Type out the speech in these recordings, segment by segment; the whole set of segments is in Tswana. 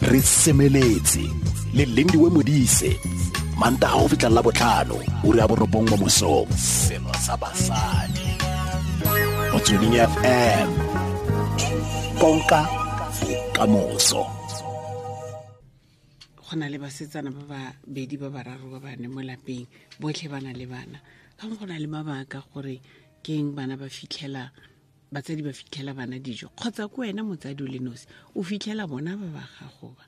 Re semeletse le Lindiwe Modise, Mantaga go fitlha la botlhano, ura ya 9 mo mosong. Selo sa basadi. Motsweding FM. Konka bokamoso. Go na le basetsana ba babedi, ba bararo, ba bane mo lapeng, botlhe ba na le bana. Ka go na le mabaka gore keng bana ba fitlhela batsadi, ba fitlhela bana dijo, kgotsa ko wena motsadi o le nosi o fitlhela bona ba ba gago ba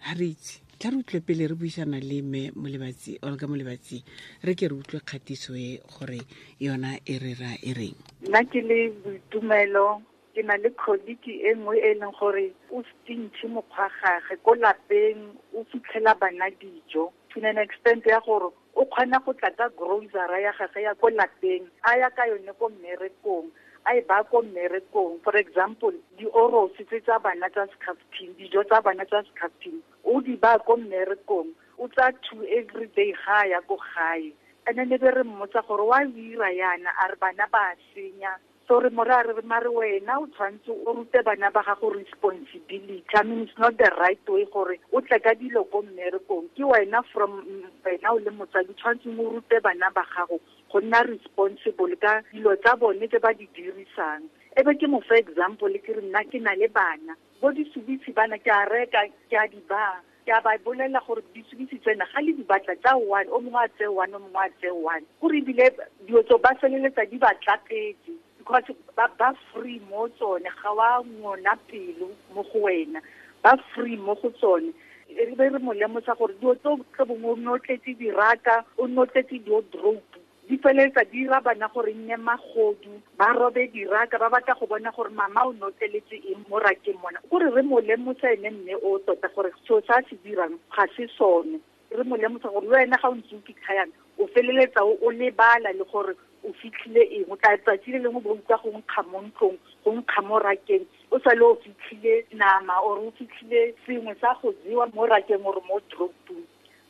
ga re itse. Tla re utlwe pele re buisana le mme Molebatsi, Olga Molebatsi. Re ke re utlwe kgatiso e gore yona e re ra e reng. Nna ke le Boitumelo, ke na le colleague e nngwe e leng gore o stingy mokgwa gage ko lapeng, o fitlhela bana dijo to an extent ya gore o kgona go tla ka grocery ya gage ya ko lapeng, a ya ka yone ko mmerekong, a e ba ko mmerekong. For example, di-Oros tse tsa bana tsa skhaftin, dijo tsa bana tsa skhaftin, o di ba ko mmerekong, o tsa two every day ga a ya ko gae. And then e be re mmotsa gore wa o ira yana, a re bana ba senya. So re more a re, mare wena o tshwanetse o rute bana ba gago responsibility. I mean, it's not the right way gore o tle ka dilo ko mmerekong. Ke wena, from wena o le motsadi, tshwanetseng o rute bana ba gago go nna responsible ka dilo tsa bone tse ba di dirisang. E be ke mo fa example, ke re nna ke na le bana bo disubitsi, bana ke a reka, ke a di ba, ke a ba bolela gore disubitsi tsena ga le di batla tsa one, o mongwe a tseye one, o mongwe a tseye one, gore ebile dilo tso ba feleletsa di ba tlapetse because ba free mo tsone, ga wa ngona pelo mo go wena, ba free mo go tsone. E be re mo lemosa gore dilo tso tlo bongwe o nne o tletse diraka, o nne o tletse di-wardrobe, di feleletsa di ira bana gore nne magodu, ba robe diraka, ba batla go bona gore mama o notleletse eng mo rakeng mona. Kore re mo lemosa ene mme o tota gore seo sa se dirang ga se sone. Re mo lemosa gore le wena ga o ntse o fitlha yana, o feleletsa o lebala le gore o fitlhile eng. O tla tsatsi le lengwe bo utlwa go nkga mo ntlong, go nkga mo rakeng, o sa le o fitlhile nama or o fitlhile sengwe sa go jewa mo rakeng or mo dropong.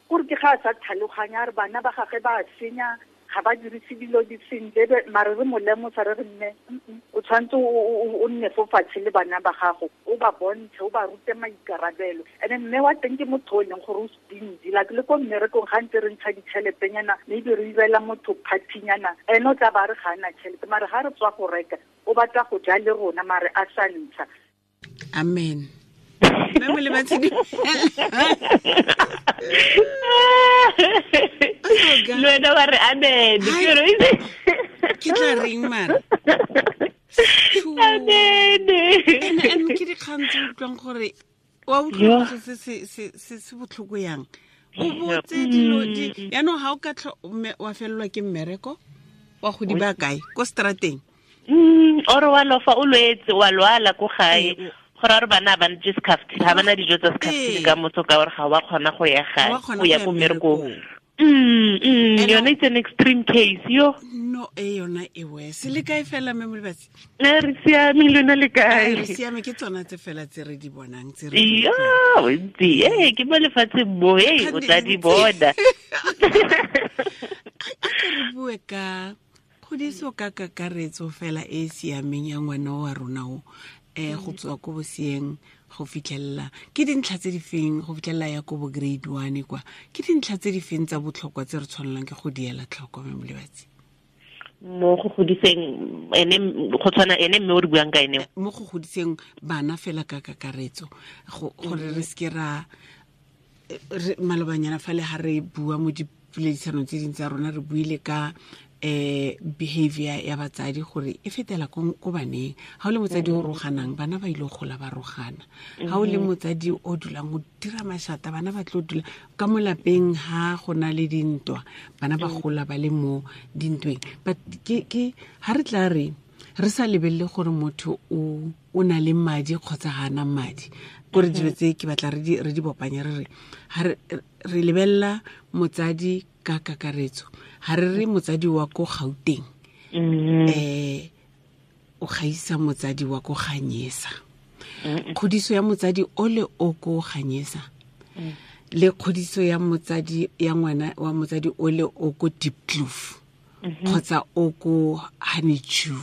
Kore ke ga a sa tlhaloganya, a re bana ba gage ba senya, ga ba dirise dilo di sentle. Mare re mo lemosa, re re mme o tshwanetse o nne fo fatshe le bana ba gago, o ba bontshe, o ba rute maikarabelo. And then mme wa teng ke motho o e leng gore o stingy, like le ko mmerekong ga ntse re ntsha ditšheletenyana, maybe re irela motho party-nyana, ene o tla ba re ga ana tšhelete, mare ga re tswa go reka o batla go ja le rona, mare a sa ntsha. Amen. Mme Molebatsi, le wena wa re amen. Ke tla reng mara? Amen. And ke dikgang tse utlwang gore wa utlwa se se botlhoko yang, o botse dilo di yaanong ga o ka wa felelwa ke mmereko, wa go di ba kae ko strateng? Ore wa lofa, o lwetse, wa lwala ko gae, gore a re bana ba ntse skhaftin, ga bana dijo tsa skhaftin ka motho, ka gore ga wa kgona go ya gae, go ya ko mmerekong. Yone it's an extreme case yo. No, e yona e worse. Le kae fela, mme Molebatsi? Ne re siame, lona le kae? Re siame, ke tsona tse fela tse re di bonang, tse re Yo, ntsi e ke mo lefatsheng mo e o tla di bona. A ke re bue ka kgodiso ka kakaretso fela e siameng ya ngwana wa rona o go tswa ko bosieng go fitlhelela, ke dintlha tse di feng, go fitlhelela ya ko bo grade 1 kwa, ke dintlha tse di feng tsa botlhokwa tse re tshwanelang ke go diela tlhoko, mme Molebatsi? Mo go godiseng ene, go tshwana ene mme o re buang ka ene, mo go godiseng bana fela ka kakaretso, gore re seke ra malobanyana fa le ha re bua mo dipoledisanong tse dintsi tsa rona, re buile ka behavior ya batsadi gore e fetela ko baneng. Ha o le motsadi o roganang, bana ba ile go gola ba rogana. Ha o le motsadi o dulang o dira mashata, bana ba tlo dula ka mo lapeng. Ha go na le dintwa, bana ba gola ba le mo dintweng. But ke ha re tla re re sa lebelele gore motho o na le madi kgotsa ga ana madi, kore dilo tse ke batla re di bopanye, re re ha re lebelela motsadi ka kakaretso, ha re re motsadi wa ko Gauteng o gaisa motsadi wa ko Ganyesa. Kgodiso ya motsadi o le o ko Ganyesa le kgodiso ya motsadi ya ngwana wa motsadi o le o ko Diepkloof kgotsa o ko Honeydew,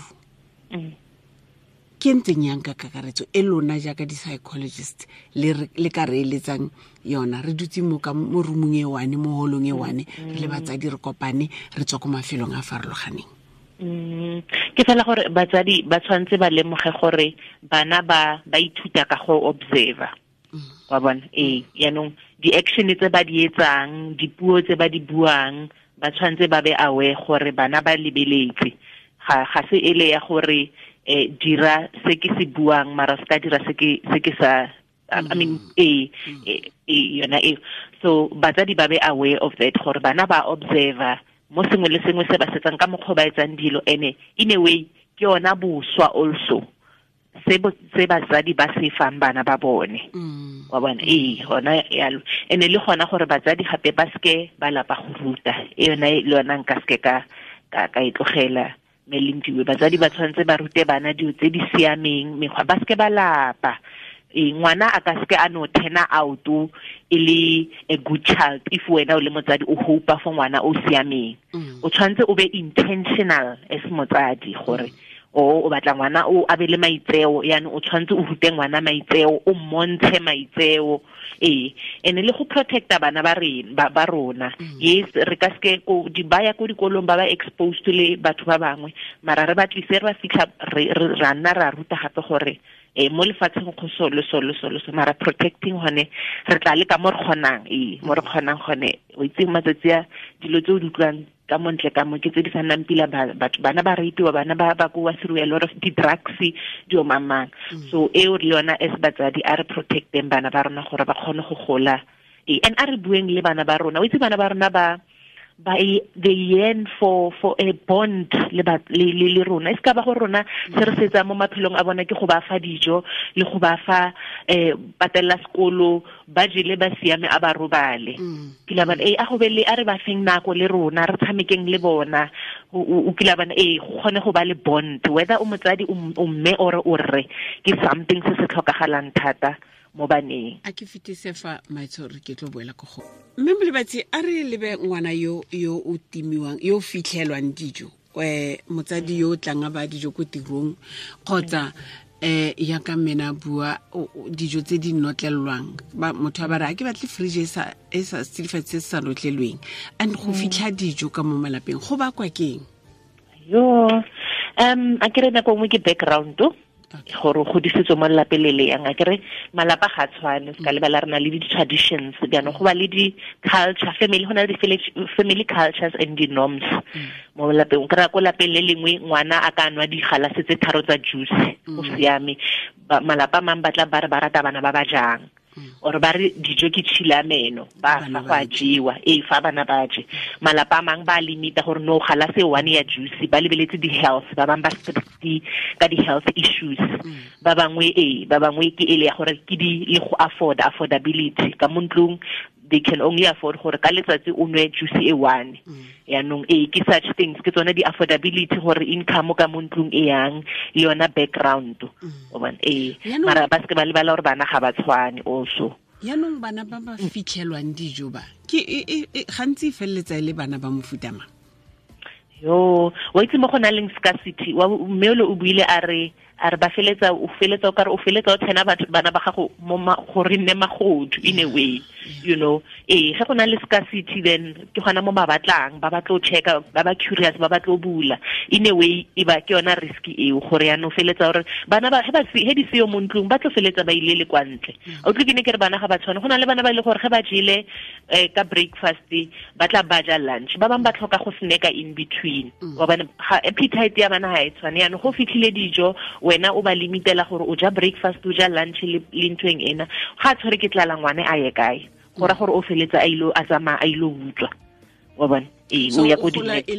Ke ntseng yang ka kakaretso e lona jaaka di-psychologist le ka re eletsang yona re dutse mo ka mo roomong e one mo holong e one re le batsadi re kopane re tswa ko mafelong a farologaneng. Ke fela gore batsadi ba tshwanetse ba lemoge gore bana ba ithuta ka go observer. Wa bona yaanong di-action tse ba di etsang, dipuo tse ba di buang, ba tshwanetse ba be aware gore bana ba lebeletse. Ga se ele ya gore dira se ke se buang mara se ka dira se ke sa I mean yona e. So batsadi ba be aware of that gore bana ba observer mo sengwe le sengwe se ba setsang ka mokgwa ba etsang dilo, ene in a way ke yona boswa also se batsadi ba se fang bana ba bone. Wa bona gona yalo. Ene le gona gore batsadi gape ba seke ba lapa go ruta, e yona le yona nka seke ka e tlogela. Melindiwe batsadi ba tshwanetse ba rute bana dilo tse di siameng, mekgwa ba seke ba lapa. Ngwana a ka seke a no turn out e le a good child if wena o le motsadi o hope for ngwana o siameng. O tshwanetse o be intentional as motsadi gore o batla ngwana o a be le maitseo, yaanong o tshwanetse o rute ngwana maitseo, o mmontshe maitseo. Ene le go protecta bana ba ba rona. Yes, re ka seke ko di baya ko dikolong ba ba exposed le batho ba bangwe, mara re ba tlise re ba fitlha re nna ra ruta gape gore mo lefatsheng go so le so le so le so, mara protecting hone re tla le ka mo re kgonang, mo re kgonang gone. O itse matsatsi a dilo tse o di utlwang ka montle ka mo ke tse di sa nnang pila batho, bana ba rapiwa, bana ba ba kowa through a lot of di-drugs dio mamang. So eo le yona as batsadi a re protecteng bana ba rona gore ba kgone go gola. And a re bueng le bana ba rona. O itse bana ba rona ba they yearn for a bond le le rona. E ska ba go rona se re setsa mo maphelong a bona ke go ba fa dijo le go ba fa patella sekolo, ba jele ba siame a ba robale. Kila bana a go be le a re ba feng nako le rona re tshamekeng le bona. O kila bana go kgone go ba le bond, whether o motsadi o mme or o rre, ke something se se tlhokagalang thata mo baneng. A ke fetise fa maitshwaro ke tlo boela ko go mme Molebatsi, a re lebe ngwana yo o timiwang, yo fitlhelwang dijo, motsadi yo o tlang a ba dijo ko tirong, kgotsa ya ka mena bua dijo tse di notlelwang, motho a ba re a ke batle fridge e sa setsidifatsi se se sa notlelweng, and go fitlha dijo ka mo malapeng go bakwa keng? Yo a ke re nako nngwe ke background gore o godisitswe mo lelapeng le le yang. A kere malapa ga tshwane, se ka lebala re na le di-traditions, jaanong go ba le di-culture, family, go na le di-family cultures and di-norms mo lapeng. O kry-a ko lapeng le lengwe ngwana a ka nwa digalase tse 3 tsa juice, go siame. Malapa a mangwe ba tla ba re ba rata bana ba ba jang, or ba re dijo ke tšhila meno, ba fa go a jewa, fa bana ba je. Malapa a mangwe ba limita gore no galase one ya juice, ba lebeletse di-health, ba bangwe ba strict ka di-health issues, ba bangwe ba bangwe ke ele ya gore ke di le go afford, affordability ka mo ntlong, they can only afford gore ka letsatsi o nwe juice e one. Yaanong ke such things, ke tsone di-affordability gore income ka mo ntlong e yang, le yona background. O bona mara ba seke ba lebala gore bana ga ba tshwane also. Yaanong bana ba ba fitlhelwang dijo ba ke gantsi e feleletsa e le bana ba mofuta mang? Yo, wa itse mo go na leng scarcity, mme o buile a re ba feletsa o feletsa o kare o feletsa o tsena batho bana ba gago mo gore nne magodu in a way, you know. Ge go na le scarcity then ke gona mo ba batlang, ba batlo checka, ba ba curious, ba batlo bula in a way, e ba ke yona risk eo gore ya no feletsa gore bana ba he di seo mo ntlong ba tlo feletsa ba ile le kwa ntle. O tle ke ne ke re bana ga ba tshwane, go na le bana ba ile gore ge ba jele ka breakfast ba tla ba ja lunch, ba bang ba tlhoka go snacka in between. Wa bana appetite ya bana ha e tshwane, yaanong go fitlhile dijo wena o ba limitela gore o ja breakfast, o ja lunch le ntweng ena, ga tshwere ke tlala ngwane a ye kae, go ra gore o feletsa a ile a tsamaya a ile utswa. Wa bona o ya ko e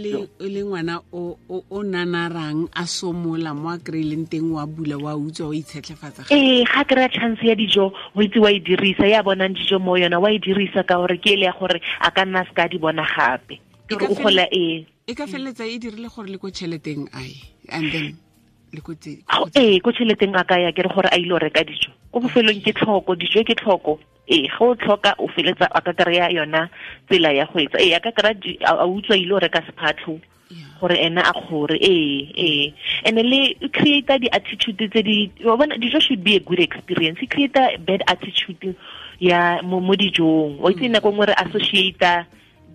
le ngwana o nanarang a somola mo a kry-ileng teng, wa bula wa utswa o itshetlhefatsa. Ga kry-a chance ya dijo o itse wa e dirisa, ya bonang dijo mo yona wa e dirisa ka gore ke ele ya gore a ka nna a se ka di bona gape. O gola E ka feleletsa e dirile gore le ko tšheleteng ae, and then le ko ko tšheleteng a ka ya ke re gore a ile go reka dijo ko bofelong ke tlhoko, dijo ke tlhoko. Ge o tlhoka o feletsa a ka kry-a yona tsela ya go etsa, a ka kry-a a utswa ile go reka sephatlho. Gore ena a kgore ee and le create the attitude tse di wa bona dijo should be a good experience. E create a bad attitude ya mo dijong. O itse nako nngwe re associate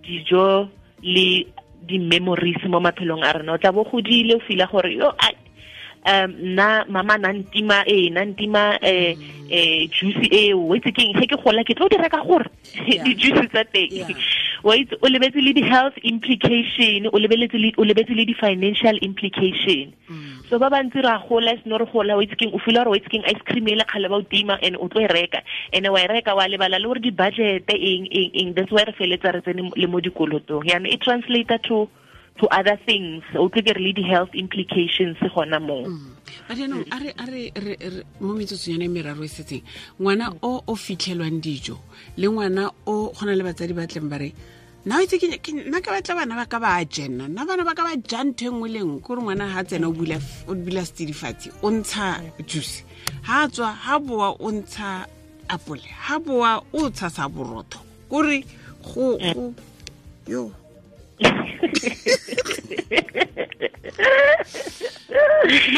dijo le di memories mo maphelong a rena. O tla bo godile o feel gore yo nna mama na ntima juice e o itse keng ge ke gola ke tlo di reka gore di juice tsa teng. Wa itse o lebetse le di health implication, o lebetse le di financial implication. So ba bantsi ra gola seno re gola o itse keng o feel gore o itse keng ice cream e le kgale ba o tima and o tlo e reka and wa e reka wa lebala le gore di budget eng that's why re feletsa re tsene le mo dikolotong. Yaanong e translate to other things, o tle ke re le di-health implications gona moo. But yaanong a re mo metsotsong yone meraro e setseng, ngwana o fitlhelwang dijo le ngwana o gona le batsadi ba tleng ba re nna itse ke nna ke batla bana ba ka ba jena, nna bana ba ka ba ja ntho e nngwe le nngwe. Kore ngwana ha tsena o bula setsidifatsi o ntsha juice, ha tswa ha boa o ntsha apole, ha boa o tshasa borotho. Kore go yo nna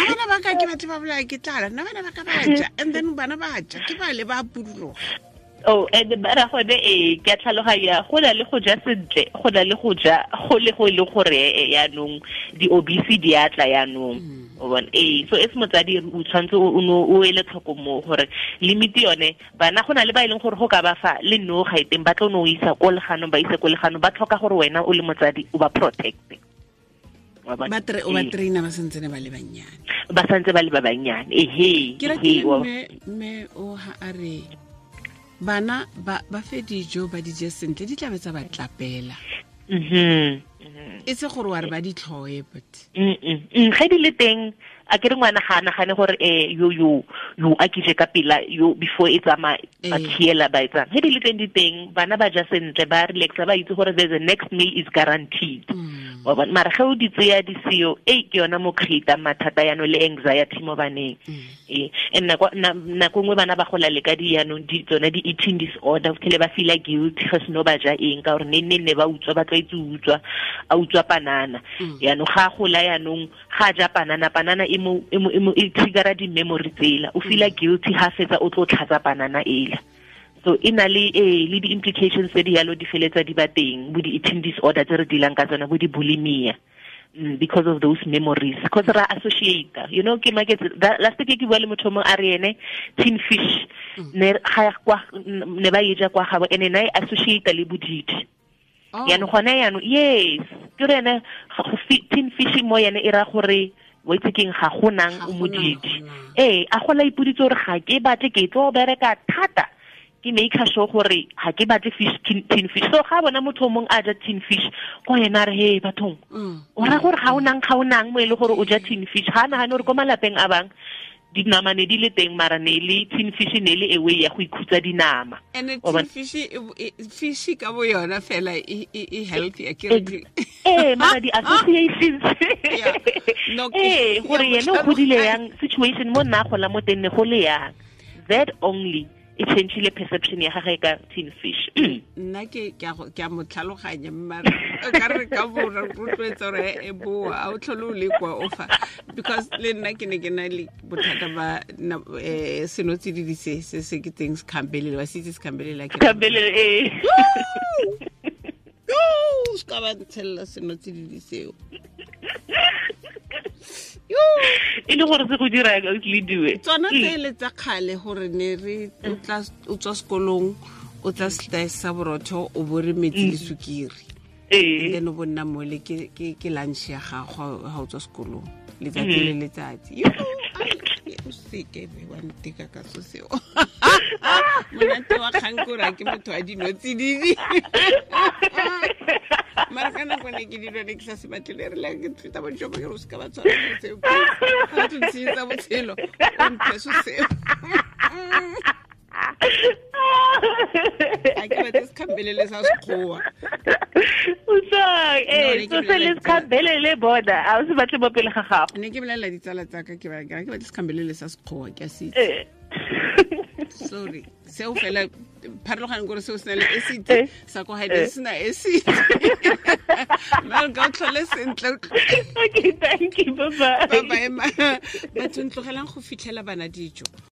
bana ba ka ke batho ba bolaya ke tlala, nna bana ba ka ba ja, and then bana ba ja ke ba le ba puduloga. Oh, and bara gone ke a tlhaloganya go na le go ja sentle, go na le go ja go le go le gore yaanong di-obese di a tla yaanong. O bona so e se motsadi o tshwanetse o ele tlhoko mo gore limit yone bana go na le ba e leng gore go ka ba fa le no ga iteng ba tlo no isa ko leganong ba ise ko leganong ba tlhoka gore wena o le motsadi o ba protect. Ba traina ba santse ba le bannyane. Ba santse ba le ba bannyane. Ehe. Ke ratile mme o ha a re bana ba fe dijo ba di je sentle di tlabe tsa ba tlapela. E se gore wa re ba di tlhoe but ge di le teng a ke re ngwana ga a nagane gore yo yo yo a ke je ka pela yo before e tsamaya ba khiela ba etsang. Ge di le teng di teng bana ba ja sentle ba relaxa ba itse gore the next meal is guaranteed. Wa bona mara ge o di tseya di seo e ke yona mo create mathata yaanong le anxiety mo baneng. And nako nngwe bana ba gola le ka di yaanong di tsone di eating disorder, o tlhele ba feel guilty ge seno ba ja eng ka gore ne ba utswa ba tlwaetse utswa a utswa panana. Yaanong ga gola yaanong ga ja panana e mo e triggera di memory tsela o feel guilty ha fetsa o tlo tlhatsa panana ela. So e na le le di implications tse di yalo di feletsa di ba teng bo di eating disorder tse re dealang ka tsona bo di bulimia because of those memories, because ra associate, you know. Ke maketse last week ke bua le motho mongwe a re ene tin fish ne ga kwa ne ba e ja kwa gabo ene na e associate le bodidi. Yaanong gone yaanong yes ke re ene tin fish mo yene e ra gore wa itse keng ga go nang o modidi. A gola ipoditse gore ga ke batle ke tlo bereka thata ke make sure gore ga ke batle fish tin fish. So ga bona motho mongwe a ja tin fish ko yena re he bathong o ra gore ga o nang mo e le gore o ja tin fish. Ga nagane gore ko malapeng a bang dinama ne di le teng mara ne le tin fish ne le ewe ya go ikhutsa dinama. And tin fish fish ka bo yona fela e healthy a ke re mara di associations gore yena o godile yang situation mo nna gola mo teng ne go le yang that only e changile perception ya gagwe ka tin fish. Nna ke a mo tlhaloganya mara ka re ka bo rotloetsa gore e boa a o tlhole o le kwa o fa because le nna ke ne ke na le bothata ba senotsididi se ke teng sekhambelele wa se itse sekhambelele ke sekhambelele yo se ka ba ntshelela senotsididi seo. E le gore se go dira ka le diwe tsona tsele tsa kgale gore ne re o tswa sekolong o tla slice sa borotho o bo re metsi le sukiri then o bonna mole ke lunch ya gago ha o tswa sekolong letsatsi le letsatsi. O seke be wa nteka ka so seo. Monate wa kgang kore ke motho wa dinotsididi. Mara ka nako ne ke dilo ne ke sa se batle re la ke feta bo jobo ke re o seka ba tshwara seo ga o ntshetsa botshelo o mphe so seo. A ke batle sekhambelele sa sekgowa. So se le sekhambelele bona a o se batle mo pele ga gago. Ne ke bolelela ditsala tsa ka ke ba ke batle sekhambelele sa sekgowa ke a se itse. Sorry, seo fela pharologaneng kore seo se na le acid, sa ko gae se na acid. Malka, o tlhole sentle. Okay, thank you, bye bye. Bye bye. Batho, ntlogelang go fitlhela bana dijo.